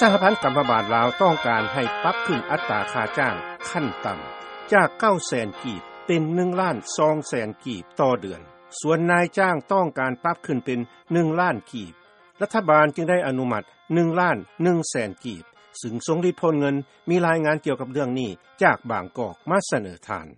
ສະຫະພັນກຳມະບານລາວ ຕ້ອງການໃຫ້ປັບຂຶ້ນອັດຕາຄ່າຈ້າງຂັ້ນຕ່ຳ ຈາກ 9 ແສນກີບ ເປັນ ໜຶ່ງລ້ານ 2 ແສນກີບຕໍ່ເດືອນ. ສ່ວນນາຍຈ້າງຕ້ອງການປັບຂຶ້ນເປັນ ໜຶ່ງລ້ານກີບ ລັດຖະບານຈຶ່ງໄດ້ອະນຸມັດ ໜຶ່ງລ້ານ 1 ແສນກີບ ຊຶ່ງ ຊົງລິດ ໂພນເງິນ ມີລາຍງານກ່ຽວກັບເລື່ອງນີ້ ຈາກບາງກອກ ມາສະເໜີທ່ານ.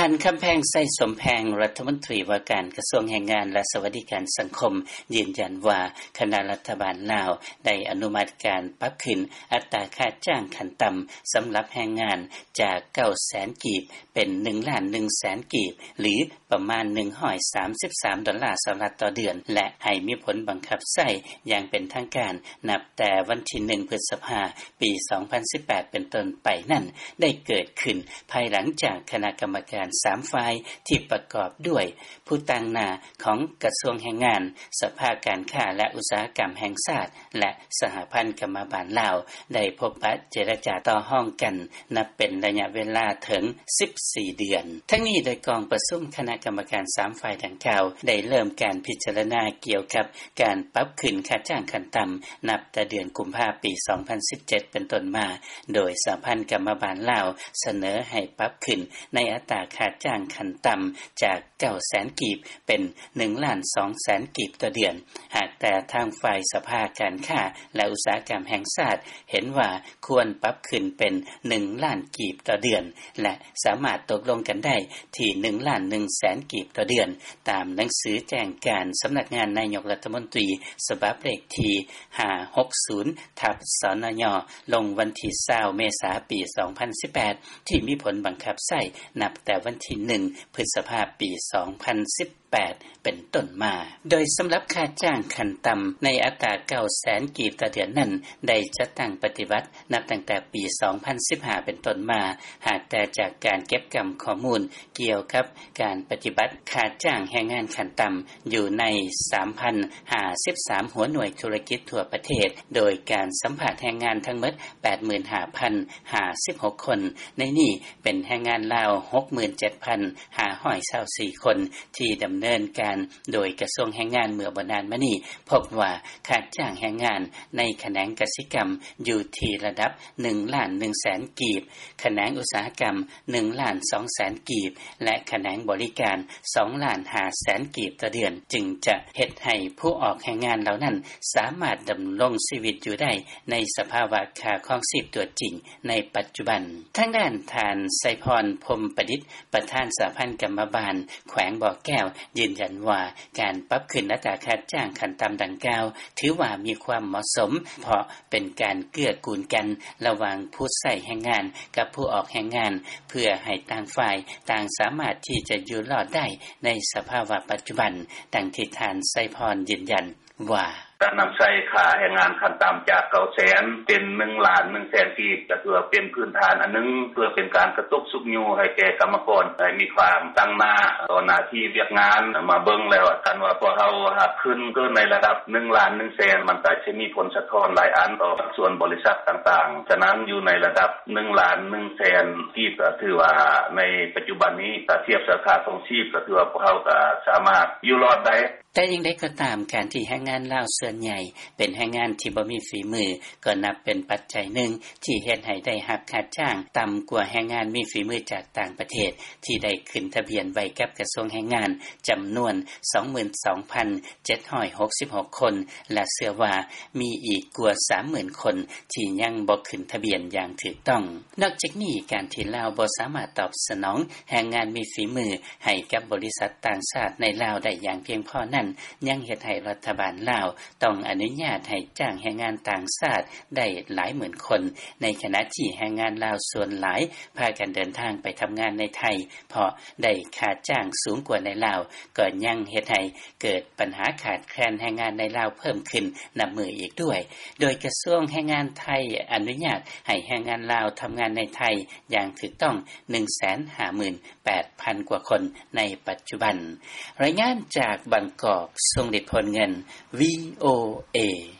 ທ່ານ ຄຳແພງ ໄຊສົມແພງ ລັດຖະມົນຕີວ່າການກະຊວງແຮງງານ ແລະ ສະຫວັດດີການສັງຄົມ ຢືນຢັນວ່າ ຄະນະລັດຖະບານລາວ ໄດ້ອະນຸມັດການປັບຂຶ້ນອັດຕາຄ່າຈ້າງຂັ້ນຕ່ຳ ສຳລັບແຮງງານ ຈາກ 9 ແສນກີບ ເປັນ ໜຶ່ງລ້ານ 1 ແສນກີບ ຫຼື ປະມານ ໜຶ່ງຮ້ອຍສາມສິບສາມ ດອນລາ ສະຫະລັດຕໍ່ເດືອນ ແລະ ໃຫ້ມີຜົນບັງຄັບໃຊ້ຢ່າງເປັນທາງການ ນັບແຕ່ວັນທີ ໜຶ່ງ ພຶດສະພາ ປີ ສອງພັນສິບແປດ ເປັນຕົ້ນໄປນັ້ນ ໄດ້ເກີດຂຶ້ນພາຍຫຼັງຈາກຄະນະກຳມະການ ສາມ ຝ່າຍ ທີ່ປະກອບດ້ວຍຜູ້ຕາງໜ້າຂອງກະຊວງແຮງງານ, ສະພາການຄ້າ ແລະ ອຸດສາຫະກຳແຫ່ງຊາດ ແລະ ສະຫະພັນກຳມະບານລາວ ໄດ້ພົບປະເຈລະຈາຕໍ່ຮອງກັນ ນັບເປັນໄລຍະເວລາເຖິງ ສິບສີ່ ເດືອນ. ທັງນີ້ ໂດຍກອງປະຊຸມຄະນະກຳມະການ ສາມ ຝ່າຍດັ່ງກ່າວ ໄດ້ເລີ່ມການພິຈາລະນາກ່ຽວກັບ ການປັບຂຶ້ນຄ່າຈ້າງຂັ້ນຕ່ຳ ນັບແຕ່ເດືອນກຸມພາ ປີ ສອງພັນສິບເຈັດ ເປັນຕົ້ນມາ, ໂດຍສະຫະພັນກຳມະບານລາວ ສະເໜີໃຫ້ປັບຂຶ້ນໃນອັດຕາຄ່າຈ້າງຂັ້ນຕ່ຳ ຈາກ 9 ແສນກີບ ເປັນ ໜຶ່ງລ້ານ 2 ແສນກີບຕໍ່ເດືອນ. ຫາກແຕ່ທາງຝ່າຍສະພາການຄ້າ ແລະ ອຸດສາຫະກຳແຫ່ງຊາດ ເຫັນວ່າຄວນປັບຂຶ້ນເປັນ ໜຶ່ງລ້ານກີບຕໍ່ເດືອນ ແລະ ສາມາດຕົກລົງກັນໄດ້ທີ່ ໜຶ່ງລ້ານ 1 ແສນກີບຕໍ່ເດືອນ ຕາມໜັງສືແຈ້ງການສຳນັກງານນາຍົກລັດຖະມົນຕີ ສະບັບເລກທີ ຫ້າຫົກສູນ ທັບ ສນຍ ລົງວັນທີ ຊາວ ເມສາ ປີ ສອງພັນສິບແປດ ທີ່ມີຜົນບັງຄັບໃຊ້ນັບແຕ່ວັນທີ ໜຶ່ງ ພຶດສະພາ ປີ ສອງພັນສິບແປດ ເປັນຕົ້ນມາ. ໂດຍສຳລັບຄ່າຈ້າງຂັ້ນຕ່ຳໃນອັດຕາ 9 ແສນກີບຕໍ່ເດືອນນັ້ນ ໄດ້ຈັດຕັ້ງປະຕິບັດນັບຕັ້ງແຕ່ປີ ສອງພັນສິບຫ້າ ເປັນຕົ້ນມາ, ຫາກແຕ່ຈາກການເກັບກຳຂໍ້ມູນກ່ຽວກັບການປະຕິບັດຄ່າຈ້າງແຮງງານຂັ້ນຕ່ຳ ຢູ່ໃນ ສາມພັນຫ້າສິບສາມ ຫົວໜ່ວຍທຸລະກິດທົ່ວປະເທດ, ໂດຍການສຳພາດແຮງງານທັງໝົດ ແປດໝື່ນຫ້າພັນຫ້າສິບຫົກຄົນ, ໃນນີ້ເປັນແຮງງານລາວ ຫົກໝື່ນເຈັດພັນຫ້າຮ້ອຍຊາວສີ່ຄົນ ທີ່ດຳເນີນການໂດຍກະຊວງແຮງງານເມື່ອບໍ່ນານມານີ້, ພົບວ່າຄ່າຈ້າງແຮງງານໃນຂະແໜງກະສິກຳຢູ່ທີ່ລະດັບ ໜຶ່ງລ້ານໜຶ່ງແສນກີບ, ຂະແໜງອຸດສາຫະກຳ ໜຶ່ງລ້ານສອງແສນກີບ ແລະ ຂະແໜງບໍລິການ ສອງລ້ານຫ້າແສນກີບຕໍ່ເດືອນ, ຈຶ່ງຈະເຮັດໃຫ້ຜູ້ອອກແຮງງານເຫຼົ່ານັ້ນ ສາມາດດຳລົງຊີວິດຢູ່ໄດ້ໃນສະພາວະຄ່າຄອງຊີບຕົວຈິງໃນປັດຈຸບັນ. ທາງດ້ານທ່ານ ໄຊພອນ ພົມປະດິດ ປະທານສະຫະພັນກຳມະບານແຂວງບໍ່ແກ້ວ ຢືນຢັນວ່າ ການປັບຂຶ້ນອັດຕາຄ່າຈ້າງຂັ້ນຕ່ຳດັ່ງກ່າວ ຖືວ່າມີຄວາມເໝາະສົມ ເພາະ ເປັນການເກື້ອກູນກັນລະຫວ່າງຜູ້ໃຊ້ແຮງງານກັບຜູ້ອອກແຮງງານ ເພື່ອໃຫ້ຕ່າງຝ່າຍຕ່າງສາມາດທີ່ຈະຢູ່ລອດໄດ້ໃນສະພາວະປັດຈຸບັນ, ດັ່ງທີ່ທ່ານ ໄຊພອນ ຢືນຢັນວ່າ: ການນຳໃຊ້ຄ່າແຮງງານຂັ້ນຕ່ຳຈາກ ເກົ້າແສນ ເປັນ ໜຶ່ງລ້ານໜຶ່ງແສນກີບ ກໍຖືວ່າເປັນພື້ນຖານອັນໜຶ່ງ ເພື່ອເປັນການກະຕຸກຊຸກຍູ້ໃຫ້ແກ່ກຳມະກອນ ໃຫ້ມີຄວາມຕັ້ງໜ້າຕໍ່ໜ້າທີ່ວຽກງານ. ມາເບິ່ງແລ້ວ ຄັນວ່າພວກເຮົາຫາກຂຶ້ນເກີນໃນລະດັບ ໜຶ່ງລ້ານໜຶ່ງແສນ ມັນກໍຈະມີຜົນສະທ້ອນຫຼາຍອັນຕໍ່ພາກສ່ວນບໍລິສັດຕ່າງໆ. ສະນັ້ນ ຢູ່ໃນລະດັບ ໜຶ່ງລ້ານໜຶ່ງແສນກີບ ກໍຖືວ່າໃນປັດຈຸບັນນີ້ ຖ້າທຽບໃສ່ຄ່າຄອງຊີບ ກໍຖືວ່າພວກເຮົາກໍສາມາດຢູ່ລອດໄດ້. ແຕ່ຢ່າງໃດກໍຕາມ, ການທີ່ແຮງງານລາວສ່ວນໃຫຍ່ເປັນແຮງງານທີ່ບໍ່ມີຝີມື ກໍນັບເປັນປັດໄຈໜຶ່ງທີ່ເຮັດໃຫ້ໄດ້ຮັບຄ່າຈ້າງຕ່ຳກວ່າແຮງງານມີຝີມືຈາກຕ່າງປະເທດ ທີ່ໄດ້ຂຶ້ນທະບຽນໄວ້ກັບກະຊວງແຮງງານ ຈຳນວນ ສອງໝື່ນສອງພັນເຈັດຮ້ອຍຫົກສິບຫົກຄົນ ແລະ ເຊື່ອວ່າມີອີກກວ່າ ສາມໝື່ນຄົນ ທີ່ຍັງບໍ່ຂຶ້ນທະບຽນຢ່າງຖືກຕ້ອງ. ນອກຈາກນີ້, ການທີ່ລາວບໍ່ສາມາດຕອບສະໜອງແຮງງານມີຝີມືໃຫ້ກັບບໍລິສັດຕ່າງຊາດໃນລາວໄດ້ຢ່າງພຽງພໍນັ້ນ ຍັງເຮັດໃຫ້ລັດຖະບານລາວຕ້ອງອະນຸຍາດໃຫ້ຈ້າງແຮງງານຕ່າງຊາດໄດ້ຫຼາຍໝື່ນຄົນ, ໃນຂະນະທີ່ແຮງງານລາວສ່ວນຫຼາຍພາກັນເດີນທາງໄປທຳງານໃນໄທ ເພາະໄດ້ຄ່າຈ້າງສູງກວ່າໃນລາວ, ກໍຍັງເຮັດໃຫ້ເກີດ ບັນຫາຂາດແຄນແຮງງານໃນລາວເພີ່ມຂຶ້ນນັບມື້ອີກດ້ວຍ, ໂດຍກະຊວງແຮງງານໄທອະນຸຍາດໃຫ້ແຮງງານລາວທຳງານໃນໄທຢ່າງຖືກຕ້ອງ ໜຶ່ງແສນຫ້າໝື່ນແປດພັນກວ່າຄົນໃນປັດຈຸບັນ. ລາຍງານຈາກບາງກອກ, ຊົງລິດ ໂພນເງິນ, ວີໂອເອ.